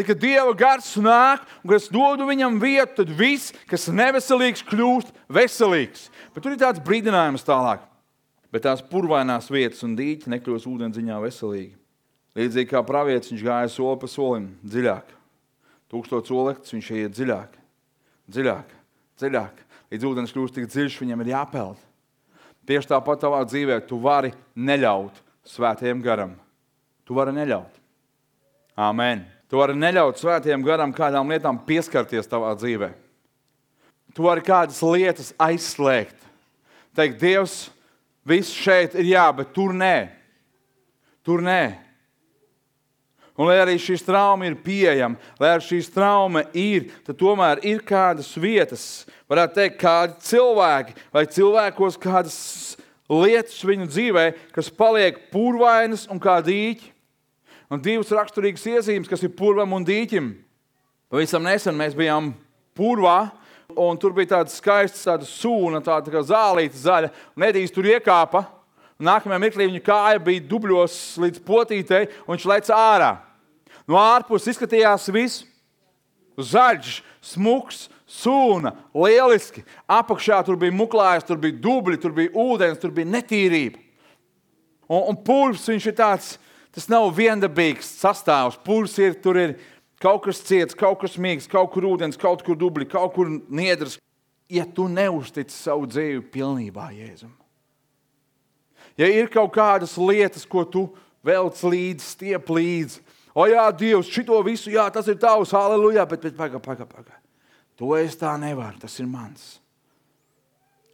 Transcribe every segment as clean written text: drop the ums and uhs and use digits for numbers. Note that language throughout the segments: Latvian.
Tad, kad Dieva gars nāk un kad es dodu viņam vietu, tad viss, kas neveselīgs, kļūst veselīgs. Bet tur ir tāds brīdinājums tālāk. Bet tās purvainās vietas un dīķi nekļūst ūdendziņā veselīgi. Līdzīgi kā pravietis, viņš gāja soli pa solim, dziļāk. 1000 solektis, viņš iet dziļāk, dziļāk, dziļāk. Līdz ūdens kļūst tik dziļš, viņam ir jāpeld. Tieši tāpat tavā dzīvē tu vari neļaut svētajam garam. Tu vari neļaut. Āmen. Tu vari neļaut svētajam garam kādām lietām pieskarties tavā dzīvē. Tu vari kādas lietas aizslēgt. Teikt, Dievs, viss šeit ir jā, bet tur nē. Tur nē. Un lai arī šīs trauma ir pieejama, lai arī šīs trauma ir, tad tomēr ir kādas vietas, varētu teikt, kādi cilvēki vai cilvēkos kādas lietas viņu dzīvē, kas paliek purvainas un kā dīķi. Un divas raksturīgas iezīmes, kas ir purvam un dīķim. Pavisam nesen mēs bijām purvā, un tur bija tāda skaista tāda sūna, tāda kā zālīta zaļa, un Edijs tur iekāpa. Nākamajā mirklī viņa kāja bija dubļos līdz potītei, un viņš lec ārā. No ārpuses izskatījās viss zaļš, smuks, sūna, lieliski. Apakšā tur bija muklājas, tur bija dubļi, tur bija ūdens, tur bija netīrība. Un purvs, viņš ir tāds, tas nav viendabīgs sastāvs. Purvs ir, tur ir kaut kas ciets, kaut kas mīgs, kaut kur ūdens, kaut kur dubļi, kaut kur niedras. Ja tu neuztici savu dzīvi pilnībā Jēzum. Ja ir kaut kādas lietas, ko tu velc līdzi, stiep līdzi, o jā, Dievs, šito visu, jā, tas ir tavs, halleluja, bet paga. To es tā nevaru, tas ir mans.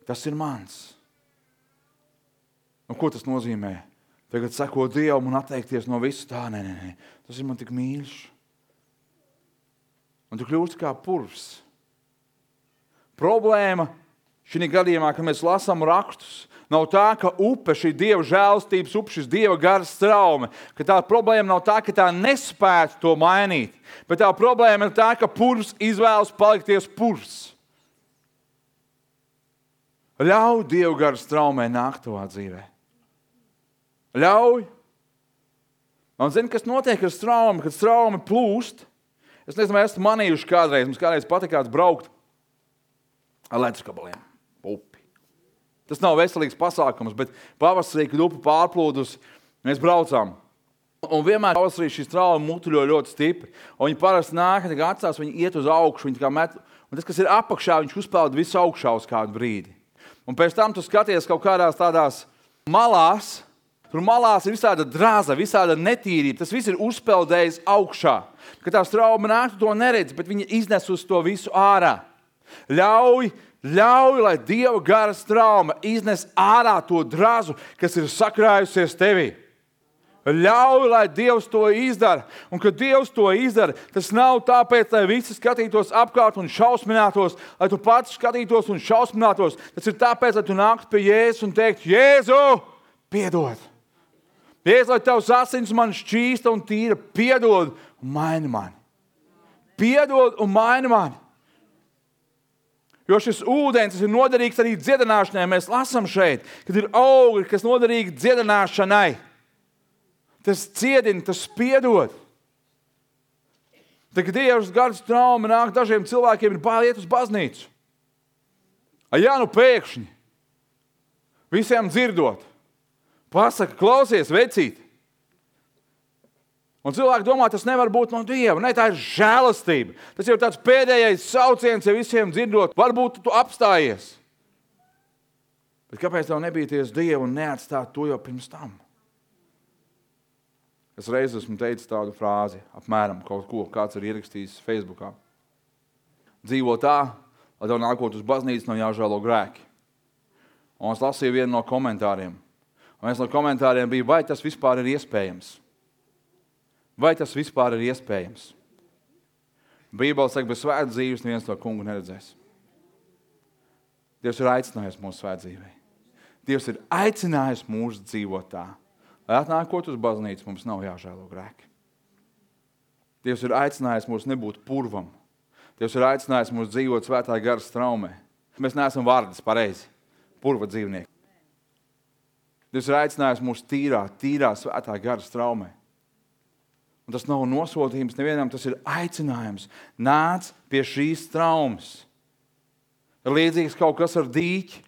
Tas ir mans. Un ko tas nozīmē? Tagad sekot Dievam un atteikties no visu tā, nē. Tas ir man tik mīļš. Un tu kļūsti kā purvs. Problēma šī gadījumā, kad mēs lasām rakstus, nav tā, ka upe, šī Dieva žēlstības upe, šis Dieva garas traume, ka tā problēma nav tā, ka tā nespētu to mainīt, bet tā problēma ir tā, ka purvs izvēlas palikties purvs. Ļauj Dieva garas traumē nākt tavā dzīvē. Ļauj. Un zini, kas notiek ar traumu, kad trauma plūst? Es nezinu, vai esmu manījuši kādreiz, mums kādreiz patikāts braukt ar ledusgabaliem. Upi. Tas nav veselīgs pasākums, bet pavasarī, kad upe pārplūdus, mēs braucām. Un vienmēr pavasarī šīs trauma mutuļo ļoti stipri. Un viņi parasti nāk, kad atstās, viņi iet uz augšu, viņi tā kā met. Un tas, kas ir apakšā, viņš uzpeld visu augšā uz kādu brīdi. Un pēc tam tu skaties kaut kādās tādās malās, tur malās ir visāda draza, visāda netīrība. Tas viss ir uzpeldējis augšā. Kad tās trauma nāk, tu to neredzi, bet viņi iznes uz to visu ārā. Ļauj, lai Dieva garas trauma iznes ārā to drazu, kas ir sakrājusies tevī. Ļauj, lai Dievs to izdara. Un kad Dievs to izdara, tas nav tāpēc, lai visi skatītos apkārt un šausminātos, lai tu pats skatītos un šausminātos. Tas ir tāpēc, lai tu nāktu pie Jēzus un teiktu, Jēzu, piedod. Jēzus, lai tavs asins man šķīsta un tīra, piedod un maini mani. Piedod un maini mani. Jo šis ūdens ir noderīgs arī dziedināšanai. Mēs lasām šeit, kad ir augļi, kas noderīgi dziedināšanai. Tas ciedina, tas piedod. Tad, kad Dievs garas trauma nāk, dažiem cilvēkiem ir bail iet uz baznīcu. Ja nu pēkšņi, visiem dzirdot, pasaka, klausies, vecīt. Un cilvēki domā, tas nevar būt no Dieva. Ne, tā ir žēlastība. Tas jau tāds pēdējais sauciens, ja visiem dzirdot, varbūt tu apstājies. Bet kāpēc tev nebīties Dievu un neatstāt to jau pirms tam? Es reiz esmu teicis tādu frāzi, apmēram kaut ko, kāds ir ierakstījis Facebookā. Dzīvo tā, lai tev nākot uz baznīcu nav jāžēlo grēki. Un es lasīju vienu no komentāriem. Un viens no komentāriem bija, vai tas vispār ir iespējams? Vai tas vispār ir iespējams? Bībele saka, bez svētas dzīves neviens to kungu neredzēs. Dievs ir aicinājis mūsu svēt dzīvē. Dievs ir aicinājis mūs dzīvot tā. Lai atnākot uz baznīcu, mums nav jāžēlo grēki. Dievs ir aicinājis mūs nebūt purvam. Dievs ir aicinājis mūs dzīvot svētā garas traumē. Mēs neesam vārdas pareizi, purva dzīvnieki. Dievs ir aicinājis mūs tīrā svētā garas traumē. Un tas nav nosodījums nevienam, tas ir aicinājums. Nāc pie šīs traumas. Ir līdzīgs kaut kas ar dīķi.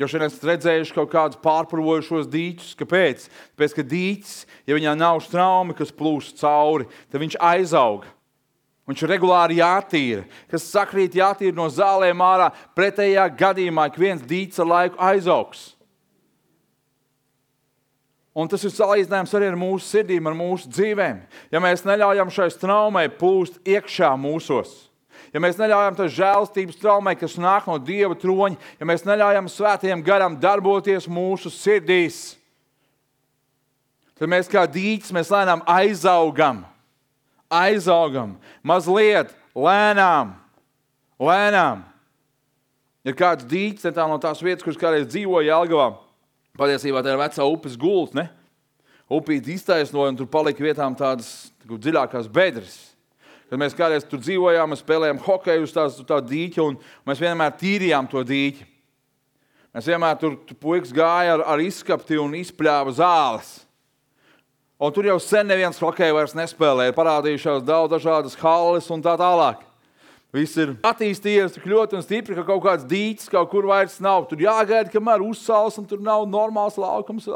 Jo šodien esat redzējuši kaut kādus pārpurvojušos dīķus. Kāpēc? Tāpēc, ka dīķis, ja viņā nav straumi, kas plūst cauri, tad viņš aizauga. Viņš ir regulāri jātīra. Kas sakrīt jātīra no zālēm ārā, pretējā gadījumā ik viens dīķis ar laiku aizaugs. Un tas ir salīdzinājums arī ar mūsu sirdīm, ar mūsu dzīvēm. Ja mēs neļaujam šai traumai plūst iekšā mūsos, ja mēs neļaujam tai žēlstības traumai, kas nāk no Dieva troņa, ja mēs neļaujam svētajam garam darboties mūsu sirdīs, tad mēs kā dīķis, mēs lēnām aizaugam. Mazliet, lēnām. Ir kāds dīķis, tā no tās vietas, kuras kādreiz dzīvoja Jelgavā. Patiesībā tā ir vecā upes gults, ne? Upīti iztaisnoja un tur palika vietām tādas dziļākās bedres. Kad mēs kādreiz tur dzīvojām, mēs spēlējām hokeju uz tā dīķa un mēs vienmēr tīrījām to dīķi. Mēs vienmēr tur puikas gāja ar izskapti un izpļāva zāles. Un tur jau sen neviens hokeju vairs nespēlē. Ir parādījušās daudz dažādas halles un tā tālāk. Viss ir attīstījies tik ļoti un stipri, ka kaut kāds dīķis kaut kur vairs nav. Tur jāgaida, kamēr uzsals un tur nav normāls laukums.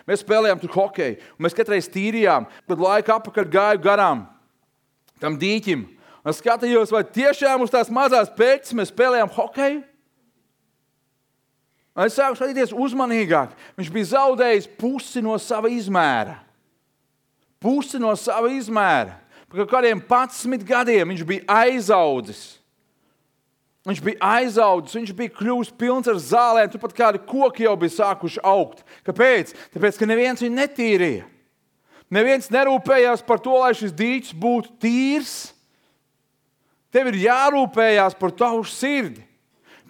Mēs spēlējām tur hokeju. Un mēs katreiz tīrījām, kad laika apakaļ gāju garām tam dīķim. Un es skatījos, vai tiešām uz tās mazās pēķis mēs spēlējām hokeju. Un es sāku skatīties uzmanīgāk. Viņš bija zaudējis pusi no sava izmēra. Par kādiem 11 gadiem viņš bija aizaudzis. Viņš bija kļuvis pilns ar zālēm, turpat kādi koki jau bija sākuši augt. Kāpēc? Tāpēc, ka neviens viņu netīrīja. Neviens nerūpējās par to, lai šis dīķis būtu tīrs. Tev ir jārūpējās par tavu sirdi.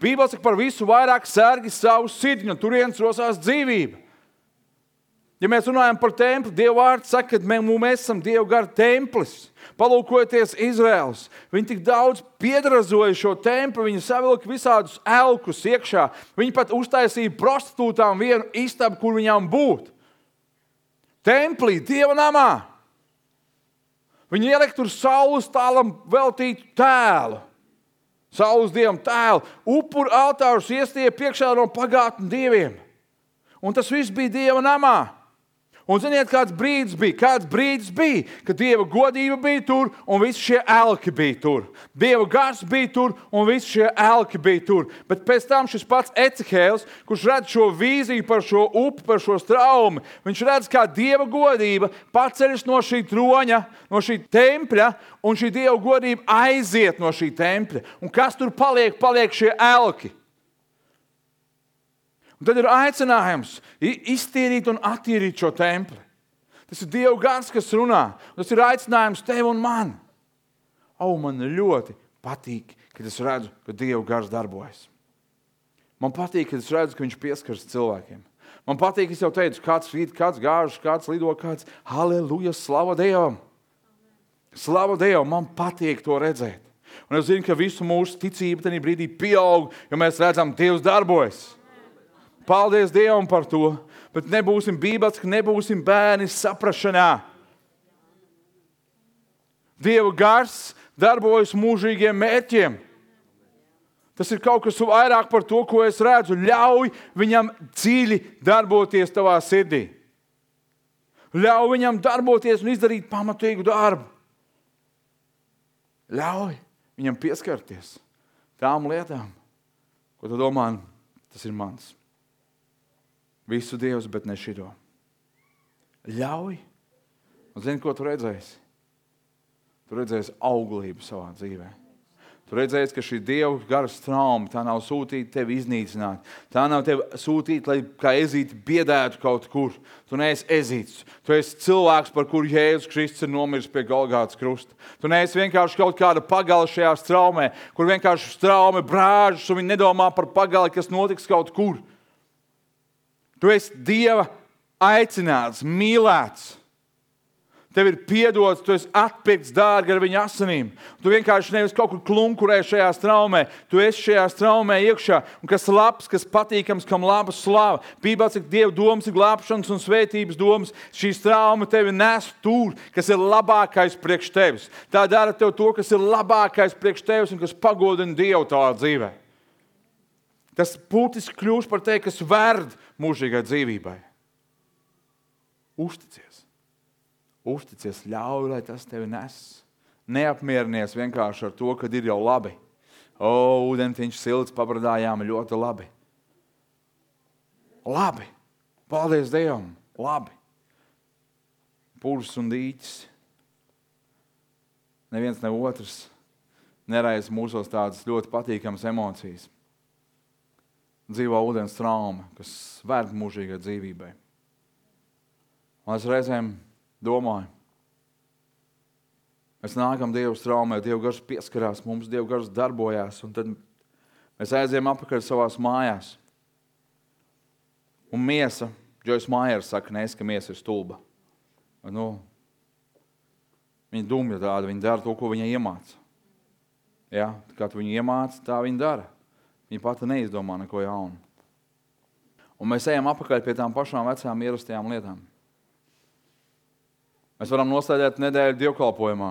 Bībele saka, par visu vairāk sargi savu sirdi, un turienes rosās dzīvība. Ja mēs runājam par templi, Dieva vārds saka, ka mēs esam Dieva gara templis. Palūkojoties Izraels, viņi tik daudz piedrazoja šo templi, viņi savilka visādus elkus iekšā. Viņi pat uztaisīja prostitūtām vienu istabu, kur viņām būt. Templī, Dieva namā. Viņi ielika tur saules tālam veltītu tēlu. Saules dievam tēlu. Upuru altārus iestīja priekšā no pagātnes dieviem. Un tas viss bija Dieva namā. Un ziniet, kāds brīdis bija, kad Dieva godība bija tur un visi šie elki bija tur. Dieva gars bija tur un visi šie elki bija tur. Bet pēc tam šis pats Ecehēls, kurš redz šo vīziju par šo upi, par šo straumi, viņš redz, kā Dieva godība paceļas no šī troņa, no šī tempļa, un šī Dieva godība aiziet no šī tempļa. Un kas tur paliek? Paliek šie elki. Un tad ir aicinājums iztīrīt un attīrīt šo templi. Tas ir Dieva gars, kas runā. Tas ir aicinājums tev un man. Man ļoti patīk, kad es redzu, ka Dieva gars darbojas. Man patīk, kad es redzu, ka viņš pieskaras cilvēkiem. Man patīk, es jau teicu, kāds rīt, kāds gāžas, kāds lido, kāds halleluja, slava Dievam. Slava Dievam, man patīk to redzēt. Un es zinu, ka visu mūsu ticība tajā brīdī pieaug, jo mēs redzam, Dievs darbojas. Paldies Dievam par to, bet nebūsim bībeliski, nebūsim bērni saprašanā. Dieva gars darbojas mūžīgiem mērķiem. Tas ir kaut kas vairāk par to, ko es redzu. Ļauj viņam dziļi darboties tavā sirdī. Ļauj viņam darboties un izdarīt pamatīgu darbu. Ļauj viņam pieskarties tām lietām, ko tu domā, tas ir mans. Visu Dievs, bet ne šito. Ļauj. Un zini, ko tu redzēsi? Tu redzēsi auglību savā dzīvē. Tu redzēsi, ka šī Dieva gara trauma, tā nav sūtīta tevi iznīcināt. Tā nav tevi sūtīta, lai kā ezīti biedētu kaut kur. Tu neesi ezīts. Tu esi cilvēks, par kuru Jēzus Kristus ir nomiris pie Golgātas krusta. Tu neesi vienkārši kaut kāda pagale šajā straumē, kur vienkārši straume brāžas un viņi nedomā par pagali, kas notiks kaut kur. Tu esi Dieva aicināts, mīlēts. Tev ir piedots, tu esi atpirkts dārgi ar viņa asinīm. Tu vienkārši nevis kaut kur klunkurē šajā straumē, tu esi šajā straumē iekšā. Un kas labs, kas patīkams, kam laba slava. Bībelē saka, Dieva domas ir glābšanas un svētības domas. Šī strauma tevi nes tur, kas ir labākais priekš tevis. Tā dara tev to, kas ir labākais priekš tevis un kas pagodina Dievu tavā dzīvē. Tas būtiski kļūst par tevi, kas verd mūžīgai dzīvībai. Uzticies, ļauj, lai tas tevi nes. Neapmierinies vienkārši ar to, kad ir jau labi. Ūdentiņš silts, pabradājām ļoti labi. Labi. Paldies Dievam. Labi. Purs un dīķis. Neviens ne otrs neraisa mūsos tādas ļoti patīkamas emocijas. Dzīvo ūdens trauma, kas vērta mūžīgai dzīvībai. Un es reizēm domāju, mēs nākam Dievu traumē, Dievu gars pieskarās mums, Dievu gars darbojās, un tad mēs aizējam apakaļ savās mājās. Un miesa, Joyce Meyer saka, ka miesa ir stulba. Viņa dumja tāda, viņa dara to, ko viņa iemāca. Ja? Kā tu viņu iemāca, tā viņa dara. Viņa pati neizdomā neko jaunu. Un mēs ejam apakaļ pie tām pašām vecām ierastajām lietām. Mēs varam noslēdēt nedēļu dievkalpojumā.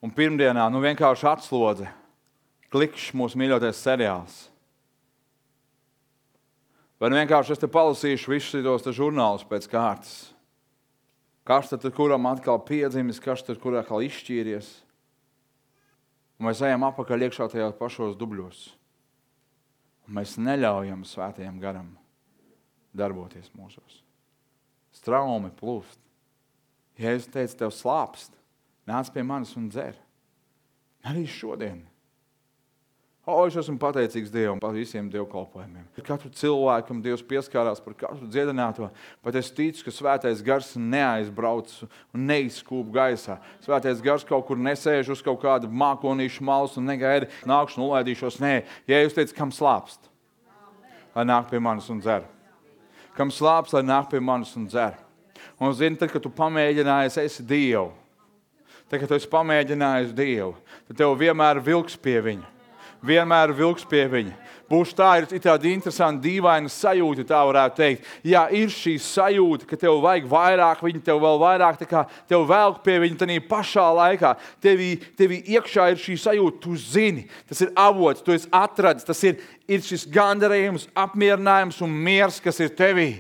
Un pirmdienā vienkārši atslodze. Klikšs mūsu mīļotais seriāls. Vai vienkārši es te palasīšu visus tos žurnālus pēc kārtas. Kas tad kuram atkal piedzimis, kas tad kurā atkal izšķīries. Un mēs ejam apakaļ iekšā tajos pašos dubļos. Un mēs neļaujam svētajam garam darboties mūsos. Straumi plūst. Jēzus teica, tev slāpst, nāc pie manis un dzer. Arī šodien. Es esmu pateicīgs Dievam par visiem dievkalpojumiem. Katru cilvēkam Dievs pieskārās par katru dziedināto, bet es ticu, ka svētais gars neaizbrauc un neizskūp gaisā. Svētais gars kaut kur nesēž uz kaut kādu mākonīšu malas un negaida, nākšu un ulaidīšos. Nē, Jēzus teica, kam slāpst, lai nāk pie manis un dzer. Kam slāpst, lai nāk pie manis un dzer. Un zini, tad, kad tu pamēģinājies, esi Dievu. Tad, kad tu esi pamēģinājis Dievu, tad tev vienmēr vilks pie viņa. Vienmēr vilks pie viņa. Būs tā, ir tāda interesanta, dīvaina sajūta, tā varētu teikt. Jā, ir šī sajūta, ka tev vajag vairāk viņa, tev vēl vairāk, tā kā tev velk pie viņa tādā pašā laikā. Tevi iekšā ir šī sajūta, tu zini, tas ir avots, tu esi atradis, tas ir šis gandarījums, apmierinājums un miers, kas ir tevī.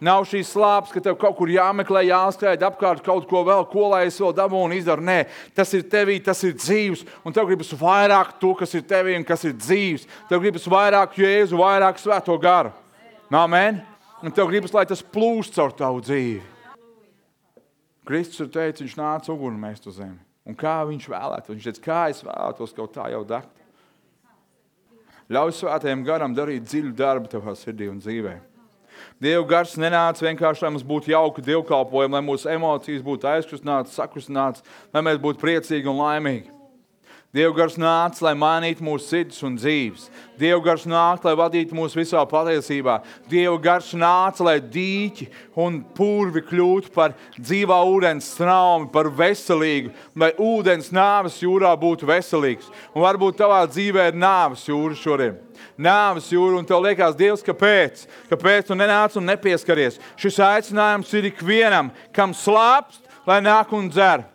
Nav šīs slāpes, ka tev kaut kur jāmeklē, jāskrēj apkārt kaut ko vēl, ko lai es vēl dabūnu izdaru. Nē, tas ir tevī, tas ir dzīvs, un tev gribas vairāk to, kas ir tevī un kas ir dzīvs. Tev gribas vairāk Jēzu, vairāk Svēto garu. Amen? Un tev gribas, lai tas plūst caur tavu dzīvi. Kristus ir teicis, viņš nāca uguni mest uz zemi. Un kā viņš vēlētu? Viņš teica, kā es vēlētos kaut tā jau degt. Ļauj Svētajam garam darīt dziļu darbu tavā sirdī un dzīvē. Dieva gars nenāca vienkārši, lai mums būtu jauki dievkalpojumi, lai mūsu emocijas būtu aizkustinātas, sakustinātas, lai mēs būtu priecīgi un laimīgi. Dieva gars nāca, lai mainītu mūsu sirdis un dzīves. Dieva gars nāca, lai vadītu mūs visā patiesībā. Dieva gars nāca, lai dīķi un purvi kļūtu par dzīvā ūdens straumi, par veselīgu, lai ūdens nāves jūrā būtu veselīgs. Un varbūt tavā dzīvē ir nāves jūra šodien. Nāves jūra, un tev liekas, Dievs, kāpēc? Kāpēc tu nenāc un nepieskaries? Šis aicinājums ir ikvienam, kam slāpst, lai nāk un dzer.